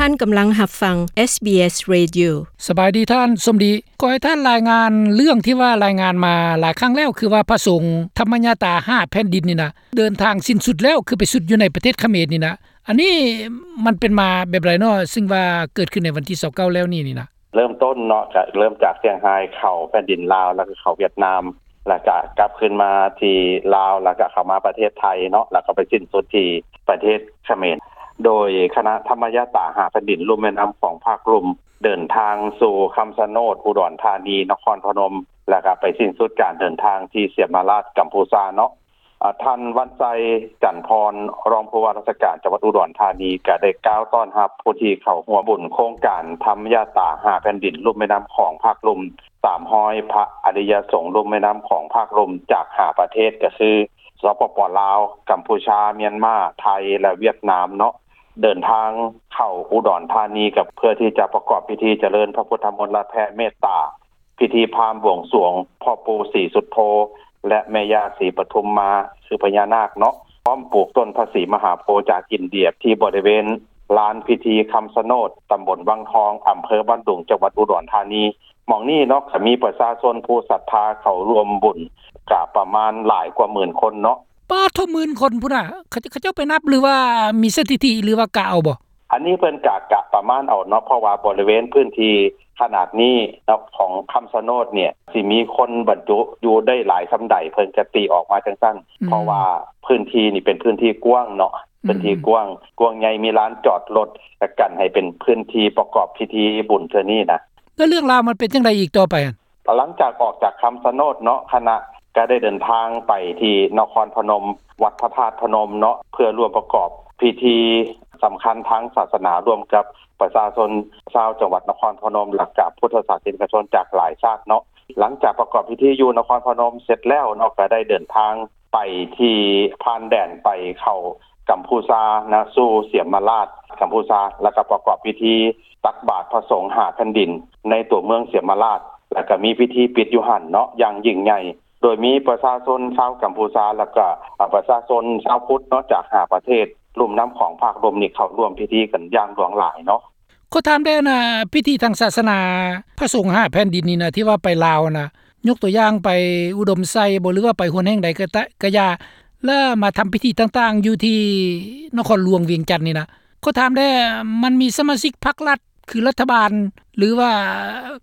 ທ່ານກຳລັງຮັບຟັງ ເອສບີເອສ Radio. ສະບາຍດີທ່ານສົມດີ. ຂໍໃຫ້ທ່ານລາຍງານເລື່ອງທີ່ວ່າລາຍງານມາຫຼາຍຄັ້ງແລ້ວ ຄືວ່າພະສົງທຳມະຍາຕາຫ້າແຜ່ນດິນນີ້ນະ ເດີນທາງສິ້ນສຸດແລ້ວ ຄືໄປສຸດຢູ່ໃນປະເທດຂະເໝນນີ້ນະ. ອັນນີ້ມັນເປັນມາແບບໃດເນາະ ຊຶ່ງວ່າເກີດຂຶ້ນໃນວັນທີຊາວເກົ້າແລ້ວນີ້ນີ້ນະ? ເລີ່ມຕົ້ນເນາະ ກະເລີ່ມຈາກຊຽງຮາຍເຂົ້າແຜ່ນດິນລາວ ແລ້ວກະເຂົ້າຫວຽດນາມ ແລ້ວກະກັບຄືນມາທີ່ລາວ ແລ້ວກະເຂົ້າມາປະເທດໄທເນາະ ແລ້ວກະໄປສິ້ນສຸດທີ່ປະເທດຂະເໝນ. ໂດຍຄະນະທຳມະຍາຕາຫ້າແຜ່ນດິນລຸ່ມແມ່ນ້ຳຂອງພາກລຸ່ມ ເດີນທາງສູ່ຄຳຊະໂນດ ອຸດອນທານີ ນະຄອນພະນົມ ແລ້ວກະໄປສິ້ນສຸດການເດີນທາງທີ່ສຽມມະລາດ ກຳພູຊາເນາະ. ອາ ທ່ານ ວັນໄຊ ຈັນພອນ ຮອງຜູ້ວ່າລາຊະການຈັງຫວັດອຸດອນທານີ ກະໄດ້ກ່າວຕ້ອນຮັບຜູ້ທີ່ເຂົ້າຮ່ວມບຸນໂຄງການທຳຍາຕາຫ້າແຜ່ນດິນລຸ່ມແມ່ນ້ຳຂອງພາກລຸ່ມ ສາມຮ້ອຍ ພະອະລິຍະສົງລຸ່ມແມ່ນ້ຳຂອງພາກລຸ່ມ ຈາກຫ້າປະເທດ ກະຄື ສປປ ລາວ, ກຳພູຊາ, ມຽນມາ, ໄທ ແລະ ຫວຽດນາມເນາະ ເດີນທາງເຂົ້າອຸດອນທານີ ກະເພື່ອທີ່ຈະປະກອບພິທີຈະເລີນພະພຸດທະມົນລະແຜ່ເມດຕາ ພິທີພາມບວງສວງພໍ່ປູ່ສີສຸດໂທ ແລະ ແມ່ຍ່າສີປະທຸມມາ ຄືພະຍານາກເນາະ ພ້ອມປູກຕົ້ນພະສີມະຫາໂພຈາກອິນເດຍ ທີ່ບໍລິເວນລານພິທີຄຳຊະໂນດ ຕຳບົນວັງທອງ ອຳເພີບ້ານດຸງ ຈັງຫວັດອຸດອນທານີ. ໝ່ອງນີ້ເນາະ ກະມີປະຊາຊົນຜູ້ສັດທາເຂົ້າຮ່ວມບຸນ ກະປະມານຫຼາຍກວ່າໝື່ນຄົນເນາະ. ປາດໂທ້ ໝື່ນຄົນພຸ້ນນະ ເຂົາ ເຂົາເຈົ້າໄປນັບ ຫຼືວ່າມີສະຖິຕິ ຫຼືວ່າກະເອົາບໍ່? ອັນນີ້ເພິ່ນກະ ກະປະມານເອົາເນາະ ເພາະວ່າບໍລິເວນພື້ນທີ່ຂະໜາດນີ້ເນາະ ຂອງຄຳຊະໂນດນີ້ ຊິມີຄົນບັນຈຸຢູ່ໄດ້ຫຼາຍສ່ຳໃດ ເພິ່ນກະຕີອອກມາຈັ່ງຊັ້ນ ອືມ ເພາະວ່າພື້ນທີ່ນີ້ເປັນພື້ນທີ່ກວ້າງເນາະ ອືມ ພື້ນທີ່ກວ້າງ ກວ້າງໃຫຍ່ ມີລານຈອດລົດ ກະກັນໃຫ້ເປັນພື້ນທີ່ປະກອບພິທີບຸນເທື່ອນີ້ນະ. ແລ້ວເລື່ອງລາວມັນເປັນຈັ່ງໃດອີກຕໍ່ໄປຫັ້ນ? ຫຼັງຈາກອອກຈາກຄຳຊະໂນດເນາະ ຄະນະກະໄດ້ເດີນທາງໄປທີ່ນະຄອນພະນົມ ວັດພະທາດພະນົມເນາະ ເພື່ອຮ່ວມປະກອບພິທີສຳຄັນທາງສາສະໜາ ຮ່ວມກັບປະຊາຊົນຊາວຈັງຫວັດນະຄອນພະນົມ ແລະ ກະພຸດທະສາສະນິກະຊົນຈາກຫຼາຍຊາດເນາະ. ຫຼັງຈາກປະກອບພິທີຢູ່ນະຄອນພະນົມເສັດແລ້ວເນາະ ກະໄດ້ເດີນທາງໄປທີ່ ຜ່ານແດນໄປເຂົ້າກຳພູຊານະ ສູ່ສຽມມະລາດ ກຳພູຊາ ແລ້ວກະປະກອບພິທີຕັກບາດພະສົງຫ້າແຜ່ນດິນ ໃນຕົວເມືອງສຽມມະລາດ ແລ້ວກະມີພິທີປິດຢູ່ຫັ້ນເນາະ ຢ່າງຍິ່ງໃຫຍ່ ໂດຍມີປະຊາຊົນຊາວກຳພູຊາ ແລ້ວກະ ອາ ປະຊາຊົນຊາວພຸດເນາະ ຈາກຫ້າປະເທດລຸ່ມນ້ຳຂອງພາກລຸ່ມນີ້ ເຂົ້າຮ່ວມພິທີກັນຢ່າງຫຼວງຫຼາຍເນາະ. ຂໍຖາມແດ່ນະ ພິທີທາງສາສະໜາພະສົງຫ້າແຜ່ນດິນນີ້ນະ ທີ່ວ່າໄປລາວນະ ຍົກຕົວຢ່າງໄປອຸດົມໄຊບໍ ຫຼືວ່າໄປຫົວແຫ່ງໃດກະຕະ ກະຢ່າ ແລະມາທຳພິທີຕ່າງໆຢູ່ທີ່ນະຄອນຫຼວງວຽງຈັນນີ້ນະ ຂໍຖາມແດ່ ມັນມີສະມາຊິກພັກລັດ ຄືລັດຖະບານ ຫຼືວ່າ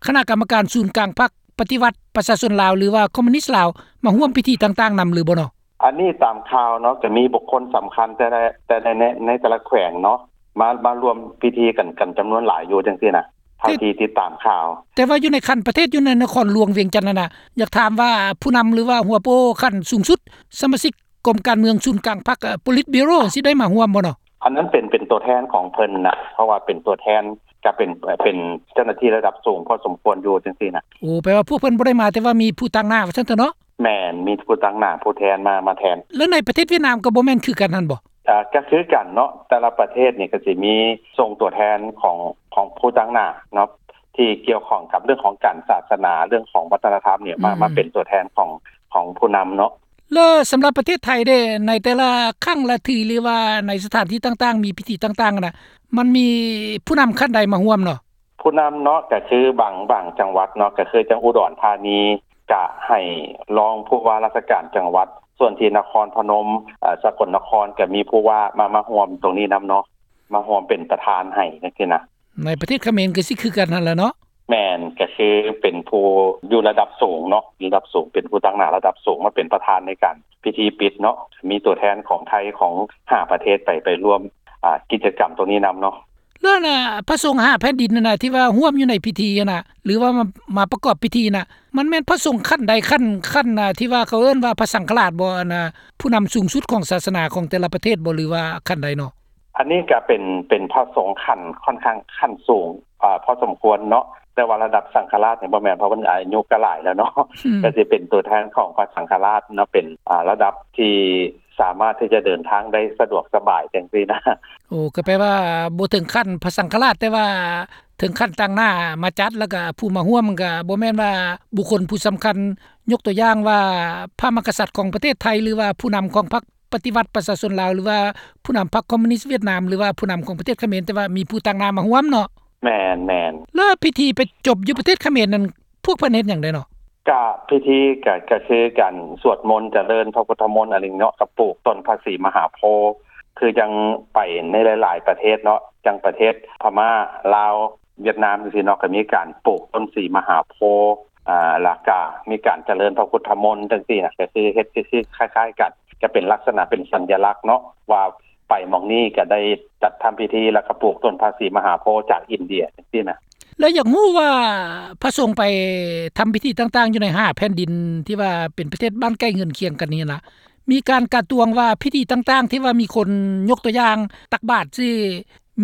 ຄະນະກຳມະການສູນກາງພັກ ປະຕິວັດປະຊາຊົນລາວ ຫຼືວ່າຄອມມູນິດລາວ ມາຮ່ວມພິທີຕ່າງໆນຳຫຼືບໍ່ເນາະ? ອັນນີ້ຕາມຂ່າວເນາະ ກະມີບຸກຄົນສຳຄັນແຕ່ລະ ແຕ່ໃນ ໃນ ໃນແຕ່ລະແຂວງເນາະ ມາ ມາຮ່ວມພິທີກັນ ກັນຈຳນວນຫຼາຍຢູ່ຈັ່ງຊີ້ນະ ເທົ່າທີ່ຕິດຕາມຂ່າວ. ແຕ່ວ່າຢູ່ໃນຂັ້ນປະເທດ ຢູ່ໃນນະຄອນຫຼວງວຽງຈັນຫັ້ນນະ ຢາກຖາມວ່າຜູ້ນຳ ຫຼືວ່າຫົວໂປຂັ້ນສູງສຸດ ສະມາຊິກກົມການເມືອງສູນກາງພັກ ໂປລິດບີໂຣ ຊິໄດ້ມາຮ່ວມບໍ່ເນາະ? ອັນນັ້ນເປັນ ເປັນຕົວແທນຂອງເພິ່ນນະ ເພາະວ່າເປັນຕົວແທນ ກະເປັນ ເປັນເຈົ້າໜ້າທີ່ລະດັບສູງພໍສົມຄວນຢູ່ຈັ່ງຊີ້ນະ. ໂອ້ ແປວ່າພວກເພິ່ນບໍ່ໄດ້ມາ ແຕ່ວ່າມີຜູ້ຕາງໜ້າວ່າຊັ້ນເຖາະເນາະ? ແມ່ນ ມີຜູ້ຕາງໜ້າ ຜູ້ແທນມາ ມາແທນ. ແລ້ວໃນປະເທດຫວຽດນາມກະບໍ່ແມ່ນຄືກັນຫັ້ນບໍ່? ອາ ກະຄືກັນເນາະ ແຕ່ລະປະເທດນີ້ກະຊິມີສົ່ງຕົວແທນຂອງ ຂອງຜູ້ຕາງໜ້າເນາະ ທີ່ກ່ຽວຂ້ອງກັບເລື່ອງຂອງການສາສະໜາ ເລື່ອງຂອງວັດທະນະທຳນີ້ ມາ ອືມ ມາເປັນຕົວແທນຂອງ ຂອງຜູ້ນຳເນາະ. ແລ້ວສຳລັບປະເທດໄທເດ້ ໃນແຕ່ລະຄັ້ງລະທີ ຫຼືວ່າໃນສະຖານທີ່ຕ່າງໆ ມີພິທີຕ່າງໆນະ ມັນມີຜູ້ນຳຂັ້ນໃດມາຮ່ວມເນາະ? ຜູ້ນຳເນາະ ກະຄືບາງ ບາງຈັງຫວັດເນາະ ກະຄືຈັ່ງອຸດອນທານີ ກະໃຫ້ຮອງຜູ້ວ່າລາຊະການຈັງຫວັດ ສ່ວນທີ່ນະຄອນພະນົມ ເອີ ສະກົນນະຄອນ ກະມີຜູ້ວ່າມາ ມາຮ່ວມຕົງນີ້ນຳເນາະ ມາຮ່ວມເປັນປະທານໃຫ້ຈັ່ງຊີ້ນະ. ໃນປະເທດຂະເໝນກະຊິຄືກັນຫັ້ນແຫຼະເນາະ? ແມ່ນ ກະຄືເປັນຜູ້ຢູ່ລະດັບສູງເນາະ ລະດັບສູງ ເປັນຜູ້ຕາງໜ້າລະດັບສູງ ມາເປັນປະທານໃນການພິທີປິດເນາະ ມີຕົວແທນຂອງໄທ ຂອງຫ້າປະເທດໄປ ໄປຮ່ວມ ອາ ກິດຈະກຳຕົງນີ້ນຳເນາະ. ແລ້ວນະ ພະສົງຫ້າແຜ່ນດິນຫັ້ນນະ ທີ່ວ່າຮ່ວມຢູ່ໃນພິທີຫັ້ນນະ ຫຼືວ່າມາ ມາປະກອບພິທີນະ ມັນແມ່ນພະສົງຂັ້ນໃດ ຂັ້ນ ຂັ້ນ ທີ່ວ່າເຂົາເອີ້ນວ່າພະສັງຄະລາດບໍ່ ອັນນະ ຜູ້ນຳສູງສຸດຂອງສາສະໜາຂອງແຕ່ລະປະເທດບໍ່ ຫຼືວ່າຂັ້ນໃດເນາະ? ອັນນີ້ກະເປັນ ເປັນພະສົງຂັ້ນຂ້ອນຂ້າງຂັ້ນສູງ ອາ ພໍສົມຄວນເນາະ ແຕ່ວ່າລະດັບສັງຄະລາດນີ້ບໍ່ແມ່ນ ເພາະເພິ່ນອາຍຸກະຫຼາຍແລ້ວເນາະ ອືມ ກະຊິເປັນຕົວແທນຂອງພະສັງຄະລາດເນາະ ເປັນ ອາ ລະດັບທີ່ສາມາດທີ່ຈະເດີນທາງໄດ້ສະດວກສະບາຍຈັ່ງຊີ້ນະ. ໂອ້ ກະແປວ່າບໍ່ເຖິງຂັ້ນພະສັງຄະລາດ ແຕ່ວ່າເຖິງຂັ້ນຕາງໜ້າມາຈັດ ແລ້ວກະຜູ້ມາຮ່ວມກະບໍ່ແມ່ນວ່າບຸກຄົນຜູ້ສຳຄັນ ຍົກຕົວຢ່າງວ່າພະມະຫາກະສັດຂອງປະເທດໄທ ຫຼືວ່າຜູ້ນຳຂອງພັກ ປະຕິວັດປະຊາຊົນລາວ ຫຼືວ່າຜູ້ນຳພັກຄອມມູນິດຫວຽດນາມ ຫຼືວ່າຜູ້ນຳຂອງປະເທດຂະເໝນ ແຕ່ວ່າມີຜູ້ຕາງໜ້າມາຮ່ວມເນາະ. ແມ່ນໆ ແລ້ວພິທີໄປຈົບຢູ່ປະເທດຂະເໝນນັ້ນ ພວກເພິ່ນເຮັດຫຍັງແດ່ເນາະ? ກະພິທີກະ ກະຄືການສວດມົນຈະເລີນພະພຸດທະມົນອັນນີ້ເນາະ ກະປູກຕົ້ນພະສີມະຫາໂພ ຄືຈັ່ງໄປໃນຫຼາຍໆປະເທດເນາະ ຈັ່ງປະເທດພະມ້າ ລາວ ຫວຽດນາມຈັ່ງຊີ້ເນາະ ກະມີການປູກຕົ້ນສີມະຫາໂພ ອາ ແລ້ວກະມີການຈະເລີນພະພຸດທະມົນຈັ່ງຊີ້ນະ ກະຄືເຮັດຄືໆຄ້າຍໆກັນ ກະເປັນລັກສະນະເປັນສັນຍະລັກເນາະ ວ່າໄປໝ່ອງນີ້ກະໄດ້ຈັດທຳພິທີ ແລ້ວກະປູກຕົ້ນພະສີມະຫາໂພຈາກອິນເດຍຈັ່ງຊີ້ນະ. ແລ້ວຢາກຮູ້ວ່າພະສົງໄປທຳພິທີຕ່າງໆຢູ່ໃນຫ້າແຜ່ນດິນທີ່ວ່າເປັນປະເທດບ້ານໃກ້ເຮືອນຄຽງກັນນີ້ນະ ມີການກະຕວງວ່າພິທີຕ່າງໆທີ່ວ່າມີຄົນ ຍົກຕົວຢ່າງຕັກບາດຊີ້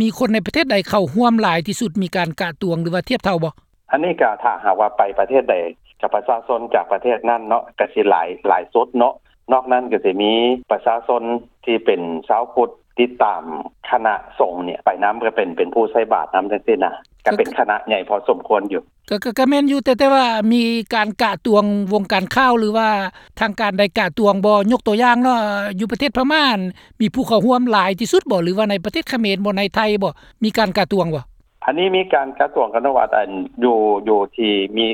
ມີຄົນໃນປະເທດໃດເຂົ້າຮ່ວມຫຼາຍທີ່ສຸດ ມີການກະຕວງ ຫຼືວ່າທຽບເທົ່າບໍ່? ອັນນີ້ກະຖ້າຫາກວ່າໄປປະເທດໃດ ກະປະຊາຊົນຈາກປະເທດນັ້ນເນາະ ກະຊິຫຼາຍ ຫຼາຍສຸດເນາະ ນອກນັ້ນກະຊິມີປະຊາຊົນທີ່ເປັນຊາວພຸດຕິດຕາມຄະນະສົງນີ້ໄປນຳ ກະເປັນ ເປັນຜູ້ໃສ່ບາດນຳຈັ່ງຊີ້ນະ ກະເປັນຄະນະໃຫຍ່ພໍສົມຄວນຢູ່. ກະ ກະ ກະແມ່ນຢູ່ ແຕ່ ແຕ່ວ່າມີການກະຕວງ ວົງການຂ່າວ ຫຼືວ່າທາງການໃດກະຕວງບໍ່? ຍົກຕົວຢ່າງເນາະ ຢູ່ປະເທດພະມ້າ ມີຜູ້ເຂົ້າຮ່ວມຫຼາຍທີ່ສຸດບໍ່ ຫຼືວ່າໃນປະເທດຂະເໝນບໍ່ ໃນໄທບໍ່ ມີການກະຕວງບໍ່? ອັນນີ້ມີການກະຕວງກັນວ່າ ອັນ ຢູ່ ຢູ່ທີ່ມີ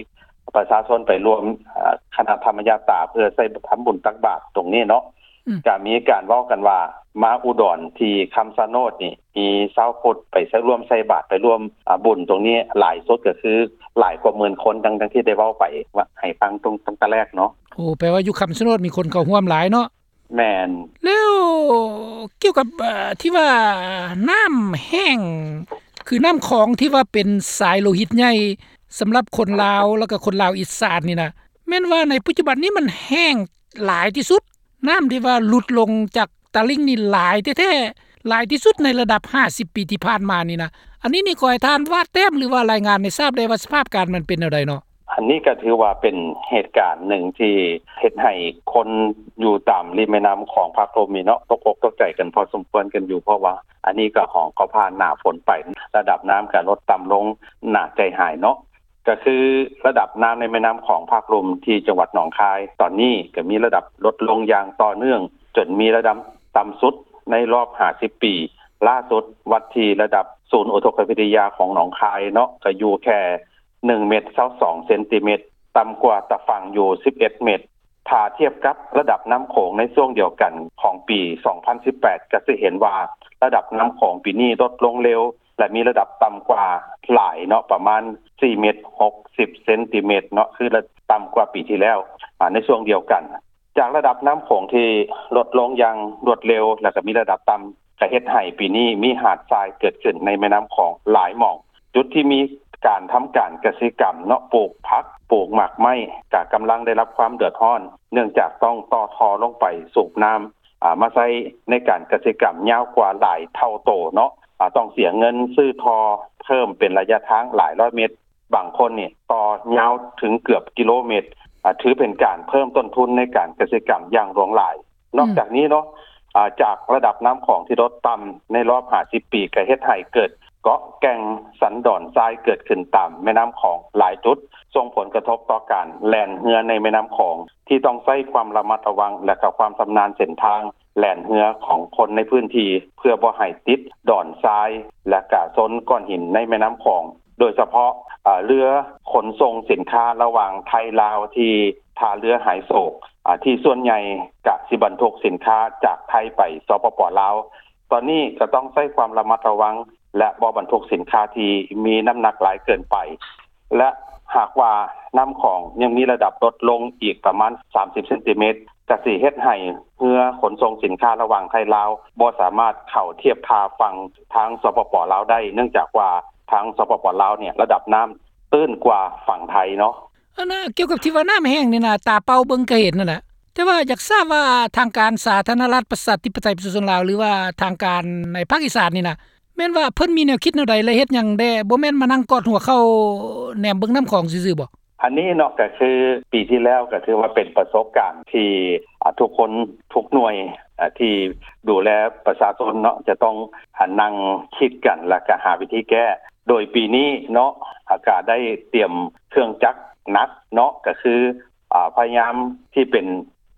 ປະຊາຊົນໄປຮ່ວມ ອາ ຄະນະທຳມະຍາດຕາ ເພື່ອໃຊ້ທຳບຸນຕັກບາດຕົງນີ້ເນາະ ອືມ ກະມີການເວົ້າກັນວ່າ ມາອຸດອນທີ່ຄຳຊະໂນດນີ້ ມີຊາວພຸດໄປໃຊ້ ຮ່ວມໃສ່ບາດ ໄປຮ່ວມ ອາ ບຸນຕົງນີ້ຫຼາຍສຸດ ກະຄືຫຼາຍກວ່າໝື່ນຄົນ ດັ່ງ ດັ່ງທີ່ໄດ້ເວົ້າໄປ ວ່າໃຫ້ຟັງຕັ້ງ ຕັ້ງແຕ່ແລກເນາະ. ໂອ້ ແປວ່າຢູ່ຄຳຊະໂນດມີຄົນເຂົ້າຮ່ວມຫຼາຍເນາະ. ແມ່ນ. ແລ້ວກ່ຽວກັບ ເອີ ທີ່ວ່ານ້ຳແຫ້ງ ຄືນ້ຳຂອງທີ່ວ່າເປັນສາຍໂລຫິດໃຫຍ່ສຳລັບຄົນລາວ ແລ້ວກໍຄົນລາວອີສານນີ້ນະ ແມ່ນວ່າໃນປັດຈຸບັນນີ້ມັນແຫ້ງຫຼາຍທີ່ສຸດ ນ້ຳທີ່ວ່າຫຼຸດລົງຈາກຕະລິ່ງນີ້ຫຼາຍແທ້ໆ ຫຼາຍທີ່ສຸດໃນລະດັບຫ້າສິບປີທີ່ຜ່ານມານີ້ນະ. ອັນນີ້ນີ້ຂໍໃຫ້ທ່ານວາດແຕ້ມ ຫຼືວ່າລາຍງານໃຫ້ຊາບໄດ້ວ່າສະພາບການມັນເປັນແນວໃດເນາະ? ອັນນີ້ກໍຖືວ່າເປັນເຫດການໜຶ່ງທີ່ເຮັດໃຫ້ຄົນຢູ່ຕາມລິມແມ່ນ້ຳຂອງພາກລຸ່ມນີ້ເນາະ ຕົກອົກຕົກໃຈກັນພໍສົມຄວນກັນຢູ່ ເພາະວ່າອັນນີ້ກໍຂອງ ກໍຜ່ານໜ້າຝົນໄປ ລະດັບນ້ຳກໍລົດຕ່ຳລົງໜ້າໃຈຫາຍເນາະ. ກໍຄືລະດັບນ້ຳໃນແມ່ນ້ຳຂອງພາກລຸ່ມທີ່ຈັງຫວັດໜອງຄາຍ ຕອນນີ້ກໍມີລະດັບລົດລົງຢ່າງຕໍ່ເນື່ອງ ຈົນມີລະດັບຕ່ຳສຸດໃນລອບຫ້າສິບປີ. ລ່າສຸດວັດທີ່ລະດັບສູນອຸທົກກະວິທະຍາຂອງໜອງຄາຍເນາະ ກໍຢູ່ແຄ່ໜຶ່ງເມັດຊາວສອງເຊັນຕີເມັດ ຕ່ຳກວ່າຕາຝັ່ງຢູ່ສິບເອັດເມັດ. ຖ້າທຽບກັບລະດັບນ້ຳໂຂງໃນຊ່ວງດຽວກັນຂອງປີສອງພັນສິບແປດ ກໍຈະເຫັນວ່າລະດັບນ້ຳໂຂງປີນີ້ລົດລົງເລັວ ແລະ ມີລະດັບຕ່ຳກວ່າຫຼາຍເນາະ ປະມານສີ່ເມັດຫົກສິບເຊັນຕີເມັດເນາະ ຄືລະ ຕ່ຳກວ່າປີທີ່ແລ້ວ ອາ ໃນຊ່ວງດຽວກັນ. ຈາກລະດັບນ້ຳໂຂງທີ່ລົດລົງຢ່າງລວດເລັວ ແລ້ວກໍມີລະດັບຕ່ຳ ກໍເຮັດໃຫ້ປີນີ້ມີຫາດຊາຍເກີດຂຶ້ນໃນແມ່ນ້ຳຂອງຫຼາຍໝ່ອງ. ຈຸດທີ່ມີການທຳການກະສິກຳເນາະ ປູກຜັກ ປູກໝາກໄມ້ ກໍກຳລັງໄດ້ຮັບຄວາມເດືອດຮ້ອນ ເນື່ອງຈາກຕ້ອງຕໍ່ທໍ່ລົງໄປສູບນ້ຳ ອາ ມາໃຊ້ໃນການກະສິກຳຍາວກວ່າຫຼາຍເທົ່າໂຕເນາະ ອາ ຕ້ອງເສຍເງິນຊື້ທໍ່ເພີ່ມເປັນໄລຍະທາງຫຼາຍຮ້ອຍເມັດ. ບາງຄົນນີ້ຕໍ່ຍາວເຖິງເກືອບກິໂລເມັດ ອາ ຖືເປັນການເພີ່ມຕົ້ນທຶນໃນການກະສິກຳຢ່າງຫຼວງຫຼາຍ. ນອກຈາກນີ້ເນາະ ອາ ຈາກລະດັບນ້ຳຂອງທີ່ລົດຕ່ຳໃນລອບຫ້າສິບປີ ກໍເຮັດໃຫ້ເກີດເກາະແກ່ງສັນດອນຊາຍເກີດຂຶ້ນຕາມແມ່ນ້ຳຂອງຫຼາຍຈຸດ ສົ່ງຜົນກະທົບຕໍ່ການແລ່ນເຮືອໃນແມ່ນ້ຳຂອງ ທີ່ຕ້ອງໃຊ້ຄວາມລະມັດລະວັງ ແລະ ກໍຄວາມຊຳນານເສັ້ນທາງ ແລ່ນເຮືອຂອງຄົນໃນພື້ນທີ່ ເພື່ອບໍ່ໃຫ້ຕິດດອນຊາຍ ແລະກະຊົນກ້ອນຫີນໃນແມ່ນ້ຳຂອງ ໂດຍສະເພາະ ເອີ ເຮືອຂົນສົ່ງສິນຄ້າລະຫວ່າງໄທລາວທີ່ທ່າເຮືອຫາຍໂສກ ອາ ທີ່ສ່ວນໃຫຍ່ກະຊິບັນທຸກສິນຄ້າຈາກໄທໄປ ສປປ ລາວ. ຕອນນີ້ກະຕ້ອງໃຊ້ຄວາມລະມັດລະວັງ ແລະ ບໍ່ບັນທຸກສິນຄ້າທີ່ມີນ້ຳໜັກຫຼາຍເກີນໄປ ແລະ ຫາກວ່ານ້ຳຂອງຍັງມີລະດັບລົດລົງອີກປະມານສາມສິບເຊັນຕີເມັດ ກະຊິເຮັດໃຫ້ເຮືອຂົນສົ່ງສິນຄ້າລະຫວ່າງໄທລາວບໍ່ສາມາດເຂົ້າທຽບທ່າຝັ່ງທາງ ສປປ ລາວ ໄດ້ ເນື່ອງຈາກວ່າທາງ ສປປ ລາວ ນີ້ລະດັບນ້ຳຕື້ນກວ່າຝັ່ງໄທເນາະ. ອັນນ່າ ກ່ຽວກັບທີ່ວ່ານ້ຳແຫ້ງນີ້ນະ ຕາເປົ່າເບິ່ງກໍເຫັນຫັ້ນແຫຼະ ແຕ່ວ່າຢາກຊາບວ່າທາງການສາທາລະນະລັດປະຊາທິປະໄຕປະຊາຊົນລາວ ຫຼືວ່າທາງການໃນພາກອີສານນີ້ນະ ແມ່ນວ່າເພິ່ນມີແນວຄິດແນວໃດ ແລະ ເຮັດຫຍັງແດ່ ບໍ່ແມ່ນມານັ່ງກອດຫົວເຂົ່າແນມເບິ່ງນ້ຳຂອງຊື່ໆບໍ? ອັນນີ້ເນາະ ກໍຄືປີທີ່ແລ້ວກໍຖືວ່າເປັນປະສົບການທີ່ ອາ ທຸກຄົນທຸກໜ່ວຍ ອາ ທີ່ດູແລປະຊາຊົນເນາະ ຈະຕ້ອງ ອາ ນັ່ງຄິດກັນ ແລ້ວກໍຫາວິທີແກ້. ໂດຍປີນີ້ເນາະ ອາ ກໍໄດ້ຕຽມເຄື່ອງຈັກໜັກເນາະ ກໍຄື ອາ ພະຍາຍາມທີ່ເປັນ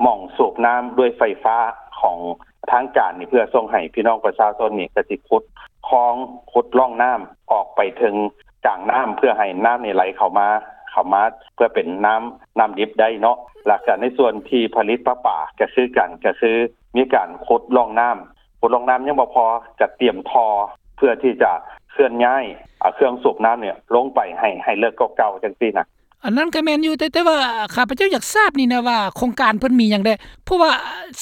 ໝ່ອງສູບນ້ຳດ້ວຍໄຟຟ້າ ຂອງທາງການນີ້ ເພື່ອສົ່ງໃຫ້ພີ່ນ້ອງປະຊາຊົນນີ້ ກໍຊິຂຸດຄອງ ຂຸດຮ່ອງນ້ຳອອກໄປເຖິງກາງນ້ຳ ເພື່ອໃຫ້ນ້ຳນີ້ໄຫຼເຂົ້າມາ ເຂົ້າມາເພື່ອເປັນນ້ຳ ນ້ຳດິບໄດ້ເນາະ. ແລ້ວກໍໃນສ່ວນທີ່ຜະລິດປະປາກໍຄືກັນ ກໍຄືມີການຂຸດຮ່ອງນ້ຳ ຂຸດຮ່ອງນ້ຳຍັງບໍ່ພໍ ກໍຕຽມທໍ່ເພື່ອທີ່ຈະເຄື່ອນຍ້າຍ ເອົາເຄື່ອງສູບນ້ຳນີ້ລົງໄປໃຫ້ ໃຫ້ເລິກກວ່າເກົ່າ ຈັ່ງຊີ້ນະ. ອັນນັ້ນກໍແມ່ນຢູ່ ແຕ່ ແຕ່ວ່າຂ້າພະເຈົ້າຢາກຊາບນີ້ນະວ່າ ໂຄງການເພິ່ນມີຫຍັງແດ່? ເພາະວ່າ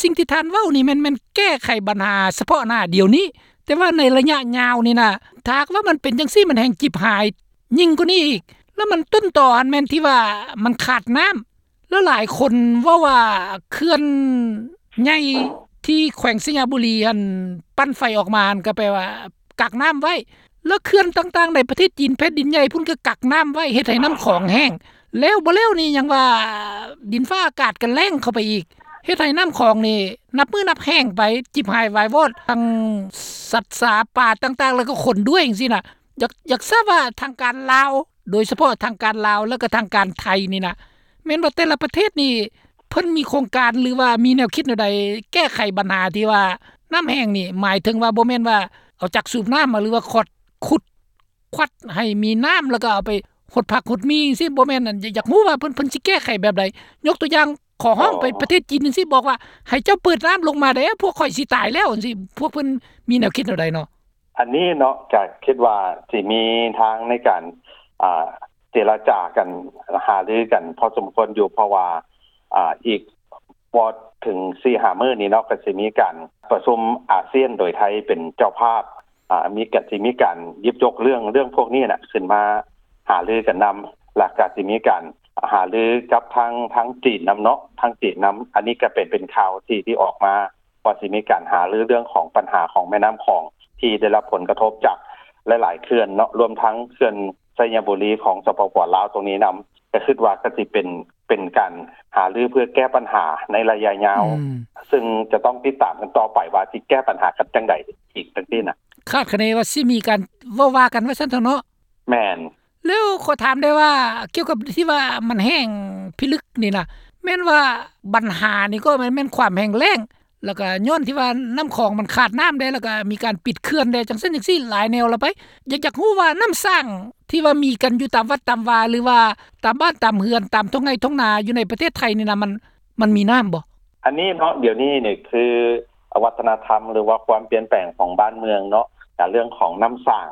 ສິ່ງທີ່ທ່ານເວົ້ານີ້ແມ່ນ ແມ່ນແກ້ໄຂບັນຫາສະເພາະໜ້າດຽວນີ້ ແຕ່ວ່າໃນໄລຍະຍາວນີ້ນະ ຖ້າຫາກວ່າມັນເປັນຈັ່ງຊີ້ ມັນແຮ່ງຈິບຫາຍຍິ່ງກວ່ານີ້ອີກ. ແລ້ວມັນຕົ້ນຕໍຫັ້ນແມ່ນທີ່ວ່າມັນຂາດນ້ຳ ແລ້ວຫຼາຍຄົນເວົ້າວ່າເຂື່ອນໃຫຍ່ທີ່ແຂວງໄຊຍະບູລີຫັ້ນ ປັ່ນໄຟອອກມາຫັ້ນ ກໍແປວ່າກັກນ້ຳໄວ້ ແລ້ວເຂື່ອນຕ່າງໆໃນປະເທດຈີນ ແຜ່ນດິນໃຫຍ່ພຸ້ນ ກໍກັກນ້ຳໄວ້ ເຮັດໃຫ້ນ້ຳຂອງແຫ້ງ ແລ້ວບໍ່ແລ້ວນີ້ຍັງວ່າດິນຟ້າອາກາດກໍແລ້ງເຂົ້າໄປອີກ ເຮັດໃຫ້ນ້ຳຂອງນີ້ນັບມື້ນັບແຫ້ງໄປ ຈິບຫາຍວາຍວອດ ທັງສັດສາປ່າຕ່າງໆ ແລ້ວກໍຄົນດ້ວຍ ຈັ່ງຊີ້ນະ. ຢາກ ຢາກຊາບວ່າທາງການລາວ ໂດຍສະເພາະທາງການລາວ ແລ້ວກໍທາງການໄທນີ້ນະ ແມ່ນວ່າແຕ່ລະປະເທດນີ້ ເພິ່ນມີໂຄງການ ຫຼືວ່າມີແນວຄິດແນວໃດ ແກ້ໄຂບັນຫາທີ່ວ່ານ້ຳແຫ້ງນີ້ ໝາຍເຖິງວ່າບໍ່ແມ່ນວ່າເອົາຈັກສູບນ້ຳມາ ຫຼືວ່າຂອດ ຂຸດ ຄວັດໃຫ້ມີນ້ຳ ແລ້ວກໍເອົາໄປຫົດຜັກຫົດໝີ່ຈັ່ງຊີ້ ບໍ່ແມ່ນ. ອັນ ຢາກ ຢາກຮູ້ວ່າເພິ່ນ ເພິ່ນຊິແກ້ໄຂແບບໃດ? ຍົກຕົວຢ່າງ ຂໍຮ້ອງໄປປະເທດຈີນຈັ່ງຊີ້ ບອກວ່າໃຫ້ເຈົ້າເປີດນ້ຳລົງມາແດ່ ພວກຂ້ອຍຊິຕາຍແລ້ວ ຈັ່ງຊີ້ ພວກເພິ່ນມີແນວຄິດແນວໃດເນາະ? ອັນນີ້ເນາະ ກໍຄິດວ່າຊິມີທາງໃນການ ອ່າ ເຈລະຈາກັນ ຫາລືກັນພໍສົມຄວນຢູ່ ເພາະວ່າ ອ່າ ອີກບໍ່ເຖິງສີ່ຫ້າມື້ນີ້ເນາະ ກໍຊິມີການປະຊຸມອາຊຽນ ໂດຍໄທເປັນເຈົ້າພາບ ອ່າ ມີ ກໍຊິມີການຫຍິບຍົກເລື່ອງ ເລື່ອງພວກນີ້ນະ ຂຶ້ນມາຫາລືກັນນຳ ແລ້ວກໍຊິມີການຫາລືກັບທາງ ທາງຈີນນຳເນາະ ທາງຈີນນຳ. ອັນນີ້ກໍເປັນ ເປັນຂ່າວທີ່ ທີ່ອອກມາ ວ່າຊິມີການຫາລືເລື່ອງຂອງບັນຫາຂອງແມ່ນ້ຳຂອງ ທີ່ໄດ້ຮັບຜົນກະທົບຈາກຫຼາຍໆເຂື່ອນເນາະ ລວມທັງເຂື່ອນໄຊຍະບູລີຂອງ ສປປ ລາວ ຕົງນີ້ນຳ ກໍຄິດວ່າກໍຊິເປັນ ເປັນການຫາລືເພື່ອແກ້ບັນຫາໃນໄລຍະຍາວ ອືມ ຊຶ່ງຈະຕ້ອງຕິດຕາມກັນຕໍ່ໄປວ່າຊິແກ້ບັນຫາກັນຈັ່ງໃດອີກ ຈັ່ງຊີ້ນະ. ຄາດຄະເນວ່າຊິມີການເວົ້າວ່າກັນວ່າຊັ້ນເຖາະເນາະ. ແມ່ນ. ແລ້ວຂໍຖາມໄດ້ວ່າ ກ່ຽວກັບທີ່ວ່າມັນແຫ້ງພິລຶກນີ້ນະ ແມ່ນວ່າບັນຫານີ້ກໍແມ່ນ ແມ່ນຄວາມແຫ້ງແລ້ງ ແລ້ວກໍຍ້ອນທີ່ວ່ານ້ຳຂອງມັນຂາດນ້ຳແດ່ ແລ້ວກໍມີການປິດເຂື່ອນແດ່ ຈັ່ງຊັ້ນຈັ່ງຊີ້ ຫຼາຍແນວລະໄປ. ຢາກ ຢາກຮູ້ວ່ານ້ຳສ້າງທີ່ວ່າມີກັນຢູ່ຕາມວັດຕາມວາ ຫຼືວ່າຕາມບ້ານຕາມເຮືອນ ຕາມທົ່ງໄຮ່ທົ່ງນາຢູ່ໃນປະເທດໄທນີ້ນະ ມັນ ມັນມີນ້ຳບໍ່? ອັນນີ້ເນາະ ດຽວນີ້ນີ້ຄືວັດທະນະທຳ ຫຼືວ່າຄວາມປ່ຽນແປງຂອງບ້ານເມືອງເນາະ ການເລື່ອງຂອງນ້ຳສ້າງ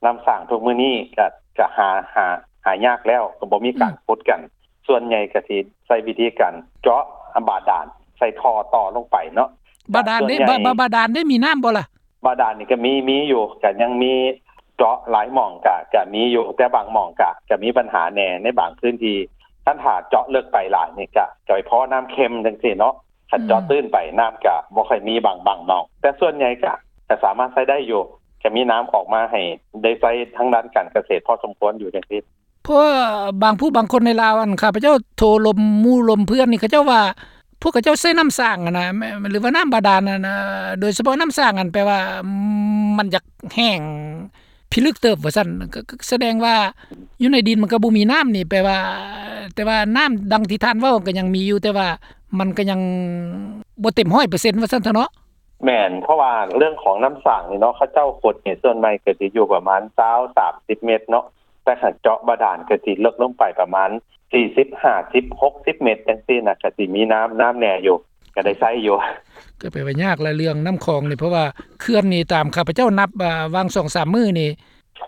ນ້ຳສ້າງທຸກມື້ນີ້ກະ ກະຫາ ຫາ ຫາຍາກແລ້ວ ກໍບໍ່ມີການ ອືມ ຂຸດກັນ ສ່ວນໃຫຍ່ກະຊິໃຊ້ວິທີການເຈາະບາດານ ໃສ່ທໍ່ຕໍ່ລົງໄປເນາະ. ບາດານເດ້ ບາ ບາ ບາດານເດ້ ມີນ້ຳບໍ່ລະ? ບາດານນີ້ກະມີ ມີຢູ່ ກະຍັງມີເຈາະຫຼາຍໝ່ອງ ກະ ກະມີຢູ່ ແຕ່ບາງໝ່ອງກະ ກະມີບັນຫາແດ່ໃນບາງພື້ນທີ່. ຄັນຖ້າເຈາະເລິກໄປຫຼາຍນີ້ກະ ກະໄປພໍ້ນ້ຳເຄັມຈັ່ງຊີ້ເນາະ. ຄັນເຈາະ ອືມ ຕື້ນໄປ ນ້ຳກະບໍ່ຄ່ອຍມີບາງ ບາງໜອງ ແຕ່ສ່ວນໃຫຍ່ກະ ກະສາມາດໃຊ້ໄດ້ຢູ່ ກະມີນ້ຳອອກມາໃຫ້ໄດ້ໃຊ້ທາງດ້ານການກະເສດພໍສົມຄວນຢູ່ຈັ່ງຊີ້. ເພາະວ່າບາງຜູ້ບາງຄົນໃນລາວ ອັນ ຂ້າພະເຈົ້າໂທລົມໝູ່ລົມເພື່ອນນີ້ ເຂົາເຈົ້າວ່າ ພວກເຂົາເຈົ້າໃຊ້ນ້ຳສ້າງຫັ້ນນະ ແມ່ນ ຫຼືວ່ານ້ຳບາດານຫັ້ນນະ ໂດຍສະເພາະນ້ຳສ້າງຫັ້ນ ແປວ່າ ອືມ ມັນຢາກແຫ້ງພິລຶກເຕີບວ່າຊັ້ນ ກໍ ກໍສະແດງວ່າຢູ່ໃນດິນມັນກໍບໍ່ມີນ້ຳນີ້ ແປວ່າ ແຕ່ວ່ານ້ຳດັ່ງທີ່ທ່ານເວົ້າກໍຍັງມີຢູ່ ແຕ່ວ່າມັນກໍຍັງບໍ່ເຕັມຮ້ອຍເປີເຊັນວ່າຊັ້ນເຖາະເນາະ. ແມ່ນ ເພາະວ່າເລື່ອງຂອງນ້ຳສ້າງນີ້ເນາະ ເຂົາເຈົ້າຂຸດນີ້ ສ່ວນໃຫຍ່ກໍຊິຢູ່ປະມານຊາວ ສາມສິບເມັດເນາະ ແຕ່ຄັນເຈາະບາດານກໍຊິເລິກລົງໄປປະມານສີ່ສິບ ຫ້າສິບ ຫົກສິບເມັດຈັ່ງຊີ້ນະ ກໍຊິມີນ້ຳ ນ້ຳແດ່ຢູ່ ກໍໄດ້ໃຊ້ຢູ່. ກໍແປວ່າຍາກລະເລື່ອງນ້ຳຂອງນີ້ ເພາະວ່າເຂື່ອນນີ້ຕາມຂ້າພະເຈົ້ານັບ ອາ ຫວ່າງສອງສາມມື້ນີ້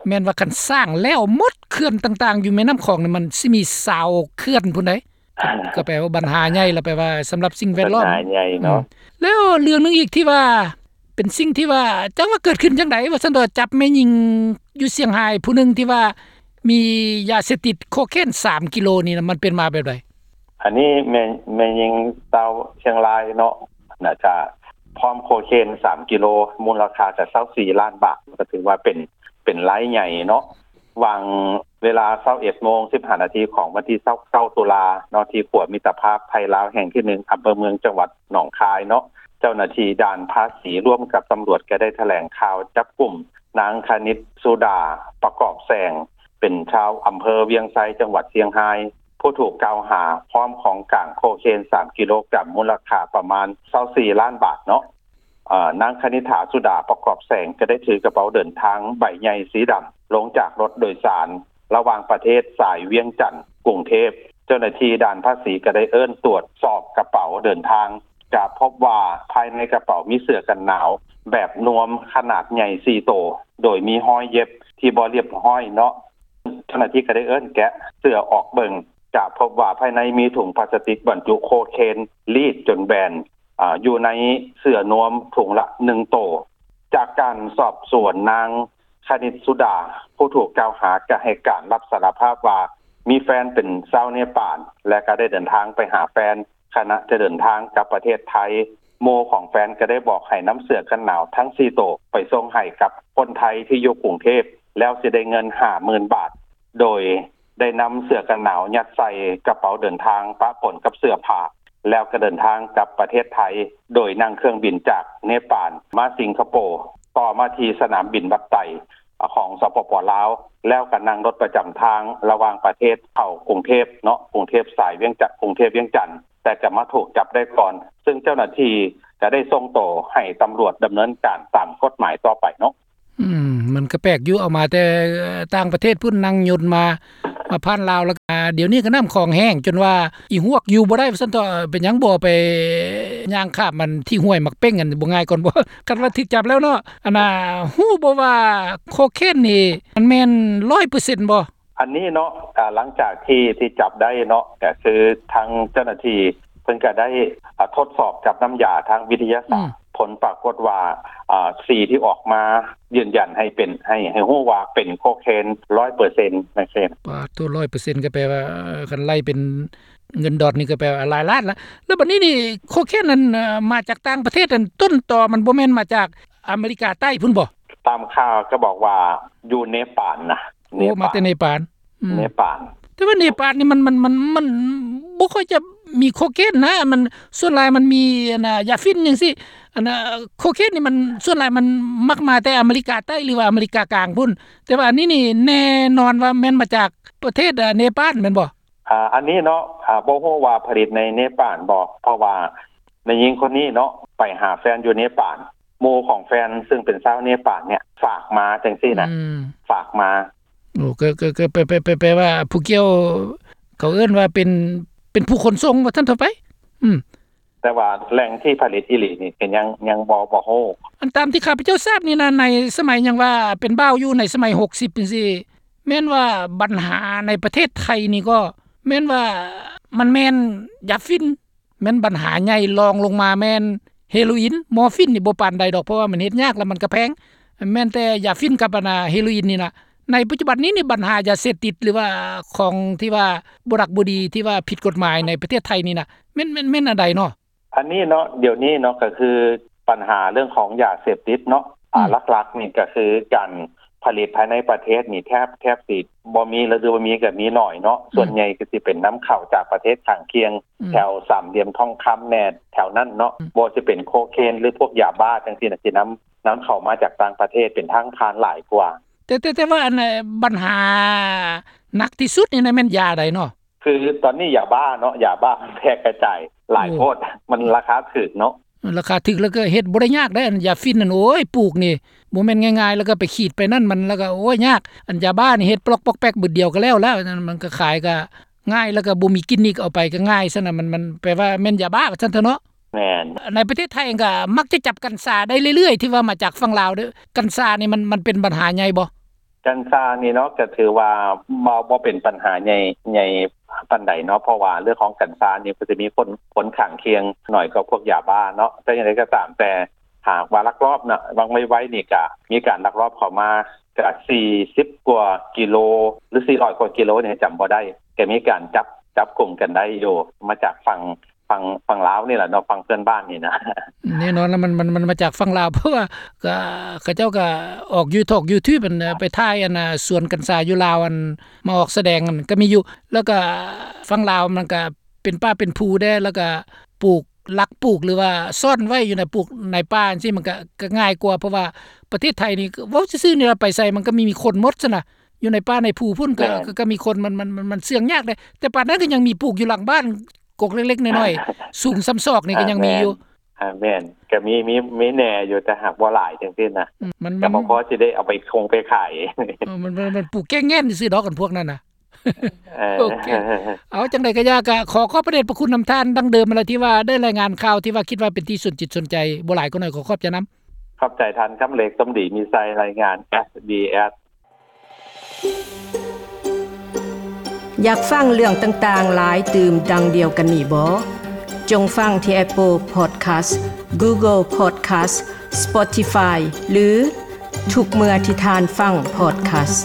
ແມ່ນວ່າຄັນສ້າງແລ້ວໝົດ ເຂື່ອນຕ່າງໆຢູ່ແມ່ນ້ຳຂອງນີ້ ມັນຊິມີຊາວເຂື່ອນພຸ້ນໃດ໋. ກໍແປວ່າບັນຫາໃຫຍ່ລະ ແປວ່າສຳລັບສິ່ງແວດລ້ອມ ບັນຫາໃຫຍ່ເນາະ. ອືມ ແລ້ວເລື່ອງໜຶ່ງອີກທີ່ວ່າ ເປັນສິ່ງທີ່ວ່າ ຈັກວ່າເກີດຂຶ້ນຈັ່ງໃດວ່າຊັ້ນເຖາະ ຈັບແມ່ຍິງຢູ່ຊຽງຮາຍຜູ້ໜຶ່ງທີ່ວ່າມີຢາເສບຕິດໂຄເຄນສາມກິໂລນີ້ນະ ມັນເປັນມາແບບໃດ? ອັນນີ້ແມ່ ແມ່ຍິງຊາວຊຽງລາຍເນາະ ໜ້າຈະພ້ອມໂຄເຄນສາມກິໂລ ມູນລະຄ່າກະຊາວສີ່ລ້ານບາດ ກໍຖືວ່າເປັນ ເປັນລາຍໃຫຍ່ເນາະ. ຫວ່າງເວລາຊາວເອັດໂມງສິບຫ້ານາທີຂອງວັນທີຊາວເກົ້າຕຸລາເນາະ ທີ່ຂົວມິດຕະພາບໄທລາວແຫ່ງທີໜຶ່ງ ອຳເພີເມືອງ ຈັງຫວັດໜອງຄາຍເນາະ ເຈົ້າໜ້າທີ່ດ່ານພາສີຮ່ວມກັບຕຳຫຼວດກໍໄດ້ຖະແຫຼງຂ່າວຈັບກຸມນາງ ຄະນິດສຸດາ ປະກອບແສງ ເປັນຊາວອຳເພີວຽງໄຊ ຈັງຫວັດຊຽງຮາຍ ຜູ້ຖືກກ່າວຫາ ພ້ອມຂອງກາງໂຄເຄນສາມກິໂລກຣາມ ມູນລະຄ່າປະມານຊາວສີ່ລ້ານບາດເນາະ. ເອີ ນາງຄະນິດຖາ ສຸດາປະກອບແສງ ກໍໄດ້ຖືກະເປົາເດີນທາງໃບໃຫຍ່ສີດຳ ລົງຈາກລົດໂດຍສານ ລະຫວ່າງປະເທດສາຍວຽງຈັນ ກຸງເທບ. ເຈົ້າໜ້າທີ່ດ່ານພາສີກໍໄດ້ເອີ້ນຕວດສອບກະເປົາເດີນທາງ ກະພົບວ່າພາຍໃນກະເປົາມີເສື້ອກັນໜາວແບບນວມຂະໜາດໃຫຍ່ສີ່ໂຕ ໂດຍມີຮອຍເຢັບທີ່ບໍ່ລຽບຮ້ອຍເນາະ. ເຈົ້າໜ້າທີ່ກໍໄດ້ເອີ້ນແກະເສື້ອອອກເບິ່ງ ກະພົບວ່າພາຍໃນມີຖົງພລາສຕິກບັນຈຸໂຄເຄນລີດຈົນແບນ ອາ ຢູ່ໃນເສື້ອນວມຖົງລະໜຶ່ງໂຕ. ຈາກການສອບສວນ ນາງຄະນິດສຸດາ ຜູ້ຖືກກ່າວຫາ ກະໃຫ້ການຮັບສາລະພາບວ່າ ມີແຟນເປັນຊາວເນປານ ແລະ ກະໄດ້ເດີນທາງໄປຫາແຟນ ຂະນະຈະເດີນທາງກັບປະເທດໄທ. ໝູ່ຂອງແຟນກະໄດ້ບອກໃຫ້ນຳເສື້ອກັນໜາວທັງສີ່ໂຕ ໄປສົ່ງໃຫ້ກັບຄົນໄທທີ່ຢູ່ກຸງເທບ ແລ້ວຊິໄດ້ເງິນຫ້າໝື່ນບາດ ໂດຍ ໄດ້ນຳເສື້ອກັນໜາວຍັດໃສ່ກະເປົາເດີນທາງປະປົນກັບເສື້ອຜ້າ ແລ້ວກໍເດີນທາງກັບປະເທດໄທ ໂດຍນັ່ງເຄື່ອງບິນຈາກເນປານມາສິງກະໂປ ຕໍ່ມາທີ່ສະໜາມບິນວັດໄຕຂອງ ສປປ ລາວ ແລ້ວກໍນັ່ງລົດປະຈຳທາງລະຫວ່າງປະເທດເຂົ້າກຸງເທບເນາະ ກຸງເທບສາຍວຽງຈັນ ກຸງເທບວຽງຈັນ ແຕ່ກໍມາຖືກຈັບໄດ້ກ່ອນ ຊຶ່ງເຈົ້າໜ້າທີ່ກໍໄດ້ສົ່ງໂຕໃຫ້ຕຳຫຼວດດຳເນີນການຕາມກົດໝາຍຕໍ່ໄປເນາະ. ອືມ ມັນກໍແປກຢູ່ ເອົາມາແຕ່ຕ່າງປະເທດພຸ້ນ ນັ່ງຍົນມາ ມາຜ່ານລາວ ແລ້ວ ອາ ດຽວນີ້ກໍນ້ຳຂອງແຫ້ງຈົນວ່າອີຫວກຢູ່ບໍ່ໄດ້ວ່າຊັ້ນເຖາະ. ເປັນຫຍັງບໍ່ໄປຍ່າງຂ້າມມັນທີ່ຫ້ວຍໝາກເປັ້ງຫັ້ນ ບໍ່ງ່າຍກ່ອນບໍ່? ຄັນວ່າຖືກຈັບແລ້ວເນາະ ອັນນ່າ ຮູ້ບໍ່ວ່າໂຄເຄນນີ້ມັນແມ່ນຮ້ອຍເປີເຊັນບໍ່? ອັນນີ້ເນາະ ອາ ຫຼັງຈາກທີ່ ທີ່ຈັບໄດ້ເນາະ ກໍຄືທາງເຈົ້າໜ້າທີ່ເພິ່ນກໍໄດ້ ອາ ທົດສອບກັບນ້ຳຢາທາງວິທະຍາສາດ ອືມ ຜົນປາກົດວ່າ ອາ ສີທີ່ອອກມາຢືນຢັນໃຫ້ເປັນ ໃຫ້ ໃຫ້ຮູ້ວ່າເປັນໂຄເຄນຮ້ອຍເປີເຊັນ ຈັ່ງຊີ້. ປາດໂທ້ ຮ້ອຍເປີເຊັນ ກໍແປວ່າ ເອີ ຄັນໄລ່ເປັນເງິນດອນນີ້ກໍແປວ່າຫຼາຍລ້ານລະ. ແລ້ວບັດນີ້ນີ້ ໂຄເຄນນັ້ນ ເອີ ມາຈາກຕ່າງປະເທດ ອັນຕົ້ນຕໍມັນບໍ່ແມ່ນມາຈາກອາເມລິກາໃຕ້ພຸ້ນບໍ່? ຕາມຂ່າວກໍບອກວ່າຢູ່ເນປານນະ. ໂອ້ ເນປານ ມາແຕ່ເນປານ. ອືມ ເນປານ. ແຕ່ວ່າເນປານນີ້ມັນ ມັນ ມັນ ມັນບໍ່ຄ່ອຍຈະມີໂຄເຄນນະ ມັນ ສ່ວນຫຼາຍມັນມີ ອັນນ່າ ຢາຝິ່ນຈັ່ງຊີ້. ອັນນ່າ ໂຄເຄນນີ້ມັນ ສ່ວນຫຼາຍມັນມັກມາແຕ່ອາເມລິກາໃຕ້ ຫຼືວ່າອາເມລິກາກາງພຸ້ນ. ແຕ່ວ່າອັນນີ້ນີ້ແນ່ນອນວ່າແມ່ນມາຈາກປະເທດ ອາ ເນປານແມ່ນບໍ່? ອາ ອັນນີ້ເນາະ ອາ ບໍ່ຮູ້ວ່າຜະລິດໃນເນປານບໍ່ ເພາະວ່າແມ່ຍິງຄົນນີ້ເນາະ ໄປຫາແຟນຢູ່ເນປານ ໝູ່ຂອງແຟນ ຊຶ່ງເປັນຊາວເນປານເນຍ ຝາກມາຈັ່ງຊີ້ນະ. ອືມ ຝາກມາ. ໂອ້ ກໍ ກໍ ກໍແປ ແປ ແປ ແປວ່າຜູ້ກ່ຽວ ເຂົາເອີ້ນວ່າເປັນ ເປັນຜູ້ຂົນສົ່ງວ່າຊັ້ນເຖາະໄປ. ອືມ ແຕ່ວ່າແຫຼ່ງທີ່ຜະລິດອີ່ຫຼີນີ້ກໍຍັງ ຍັງບໍ່ ບໍ່ຮູ້. ອັນຕາມທີ່ຂ້າພະເຈົ້າຊາບນີ້ນະ ໃນສະໄໝຫຍັງວ່າເປັນບ່າວຢູ່ໃນສະໄໝຫົກສິບຈັ່ງຊີ້ ແມ່ນວ່າບັນຫາໃນປະເທດໄທນີ້ກໍແມ່ນວ່າມັນແມ່ນຢາຝິ່ນ ແມ່ນບັນຫາໃຫຍ່ ລອງລົງມາແມ່ນເຮໂຣອິນ ມໍຟີນນີ້ບໍ່ປານໃດດອກ ເພາະວ່າມັນເຮັດຍາກ ແລ້ວມັນກໍແພງ ແມ່ນແຕ່ຢາຝິ່ນກັບອັນ ອາ ເຮໂຣອິນນີ້ນະ. ໃນປັດຈຸບັນນີ້ນີ້ ບັນຫາຢາເສບຕິດ ຫຼືວ່າຂອງທີ່ວ່າບໍ່ດັກບໍ່ດີ ທີ່ວ່າຜິດກົດໝາຍໃນປະເທດໄທນີ້ນະ ແມ່ນ ແມ່ນ ແມ່ນອັນໃດເນາະ? ອັນນີ້ເນາະ ດຽວນີ້ເນາະ ກໍຄືບັນຫາເລື່ອງຂອງຢາເສບຕິດເນາະ ອືມ ອາ ຫຼັກໆນີ້ກໍຄືການຜະລິດພາຍໃນປະເທດນີ້ແທບ ແທບຊິບໍ່ມີ ຫຼືວ່າມີກໍມີໜ້ອຍເນາະ ອືມ ສ່ວນໃຫຍ່ກໍຊິເປັນນຳເຂົ້າຈາກປະເທດຂ້າງຄຽງ ອືມ ແຖວສາມຫຼ່ຽມທອງຄຳແດ່ ແຖວນັ້ນເນາະ ອືມ ບໍ່ວ່າຊິເປັນໂຄເຄນ ຫຼືພວກຢາບ້າຈັ່ງຊີ້ນະ ຊິນຳ ນຳເຂົ້າມາຈາກຕ່າງປະເທດເປັນທາງຜ່ານຫຼາຍກວ່າ. ແຕ່ ແຕ່ ແຕ່ວ່າອັນ ບັນຫາໜັກທີ່ສຸດນີ້ນະ ແມ່ນຢາໃດເນາະ? ຄືຕອນນີ້ຢາບ້າເນາະ ຢາບ້າມັນແພ່ກະຈາຍຫຼາຍໂພດ ໂອ້ ມັນລາຄາຖືກເນາະ ລາຄາຖືກ ແລ້ວກໍເຮັດບໍ່ໄດ້ຍາກໄດ໋ ອັນຢາຝິ່ນນັ້ນ ໂອ້ຍ ປູກນີ້ບໍ່ແມ່ນງ່າຍໆ ແລ້ວກໍໄປຂີດໄປນັ້ນ ມັນ ແລ້ວກໍ ໂອ້ຍ ຍາກ ອັນຢາບ້ານີ້ເຮັດປລັອກປອກແປກບຶດດຽວກໍແລ້ວແລ້ວ ມັນກໍຂາຍກໍງ່າຍ ແລ້ວກໍບໍ່ມີກິນນີ້ ເອົາໄປກໍງ່າຍຊັ້ນນະ ມັນ ມັນແປວ່າແມ່ນຢາບ້າວ່າຊັ້ນເຖາະເນາະ. ແມ່ນ. ໃນປະເທດໄທເອງກໍມັກຈະຈັບກັນຊາໄດ້ເລື້ອຍໆ ທີ່ວ່າມາຈາກຝັ່ງລາວເດີ້ ກັນຊານີ້ມັນ ມັນເປັນບັນຫາໃຫຍ່ບໍ່? ກັນຊານີ້ເນາະ ກໍຖືວ່າບໍ່ ບໍ່ເປັນບັນຫາໃຫຍ່ ໃຫຍ່ປານໃດເນາະ ເພາະວ່າເລື່ອງຂອງກັນຊານີ້ ກໍຈະມີຜົນ ຜົນຂ້າງຄຽງໜ້ອຍກວ່າພວກຢາບ້າເນາະ. ແຕ່ຢ່າງໃດກໍຕາມແຕ່ ຫາກວ່າລັກລອບນະ ຫວ່າງໄວໆນີ້ກະມີການລັກລອບເຂົ້າມາ ກະສີ່ສິບກວ່າກິໂລ ຫຼື ສີ່ຮ້ອຍກວ່າກິໂລນີ້ ຈຳບໍ່ໄດ້ ກະມີການຈັບ ຈັບກຸມກັນໄດ້ຢູ່ ມາຈາກຝັ່ງ ຝັ່ງ ຝັ່ງລາວນີ້ແຫຼະເນາະ ຝັ່ງເພື່ອນບ້ານນີ້ນະ. ແນ່ນອນລະ ມັນ ມັນ ມັນມາຈາກຝັ່ງລາວ ເພາະວ່າກະ ເຂົາເຈົ້າກະອອກຢູທູບ ຢູທູບ ອັນ ໄປຖ່າຍ ອັນ ສວນກັນຊາຢູ່ລາວ ອັນ ມາອອກສະແດງ ອັນ ກະມີຢູ່ ແລ້ວກະຝັ່ງລາວມັນກະເປັນປ່າເປັນພູແດ່ ແລ້ວກະປູກ ລັກປູກ ຫຼືວ່າສ້ອນໄວ້ຢູ່ໃນປູກໃນປ່າຈັ່ງຊີ້ ມັນກະ ກະງ່າຍກວ່າ ເພາະວ່າປະເທດໄທນີ້ ເວົ້າຊື່ໆນີ້ລະ ໄປໃສມັນກະມີ ມີຄົນໝົດຊັ້ນນະ. ຢູ່ໃນປ່າໃນພູພຸ້ນ ກໍ ແມ່ນ ກໍ ກໍມີຄົນ ມັນ ມັນ ມັນ ມັນເຊື່ອງຍາກເດ້ ແຕ່ປານນັ້ນກໍຍັງມີປູກຢູ່ຫຼັງບ້ານ ກົກເລັກໆນ້ອຍໆ ສູງສ່ຳສອກນີ້ກໍຍັງມີຢູ່. ອ່າ ແມ່ນ ກໍມີ ມີ ມີແດ່ຢູ່ ແຕ່ຫາກບໍ່ຫຼາຍຈັ່ງຊີ້ນະ. ອືມ ມັນ ກໍບໍ່ພໍຊິໄດ້ເອົາໄປຄົງໄປຂາຍ. ເອີ ມັນ ມັນ ມັນປູກແກ້ງແງ່ນຊື່ດອກ ອັນພວກນັ້ນນະ. ເອີ ໂອເຄ ເອົາ ຈັ່ງໃດກໍຢ່າ ກໍຂໍຂອບພະເດດພະຄຸນນຳທ່ານດັ່ງເດີມຫັ້ນລະ ທີ່ວ່າໄດ້ລາຍງານຂ່າວ ທີ່ວ່າຄິດວ່າເປັນທີ່ສົນຈິດສົນໃຈ ບໍ່ຫຼາຍກໍໜ້ອຍ ຂໍຂອບໃຈນຳ. ຂອບໃຈທ່ານຄຳເລັກ ສົມດີມີໄຊ ລາຍງານ ເອສບີເອສ. ຢາກຟັງເລື່ອງຕ່າງໆຫຼາຍຕື່ມດັ່ງດຽວກັນນີ້ບໍ? ຈົ່ງຟັງທີ່ Apple Podcast, Google Podcast, Spotify ຫຼື ທຸກເມື່ອທີ່ທ່ານຟັງ Podcast.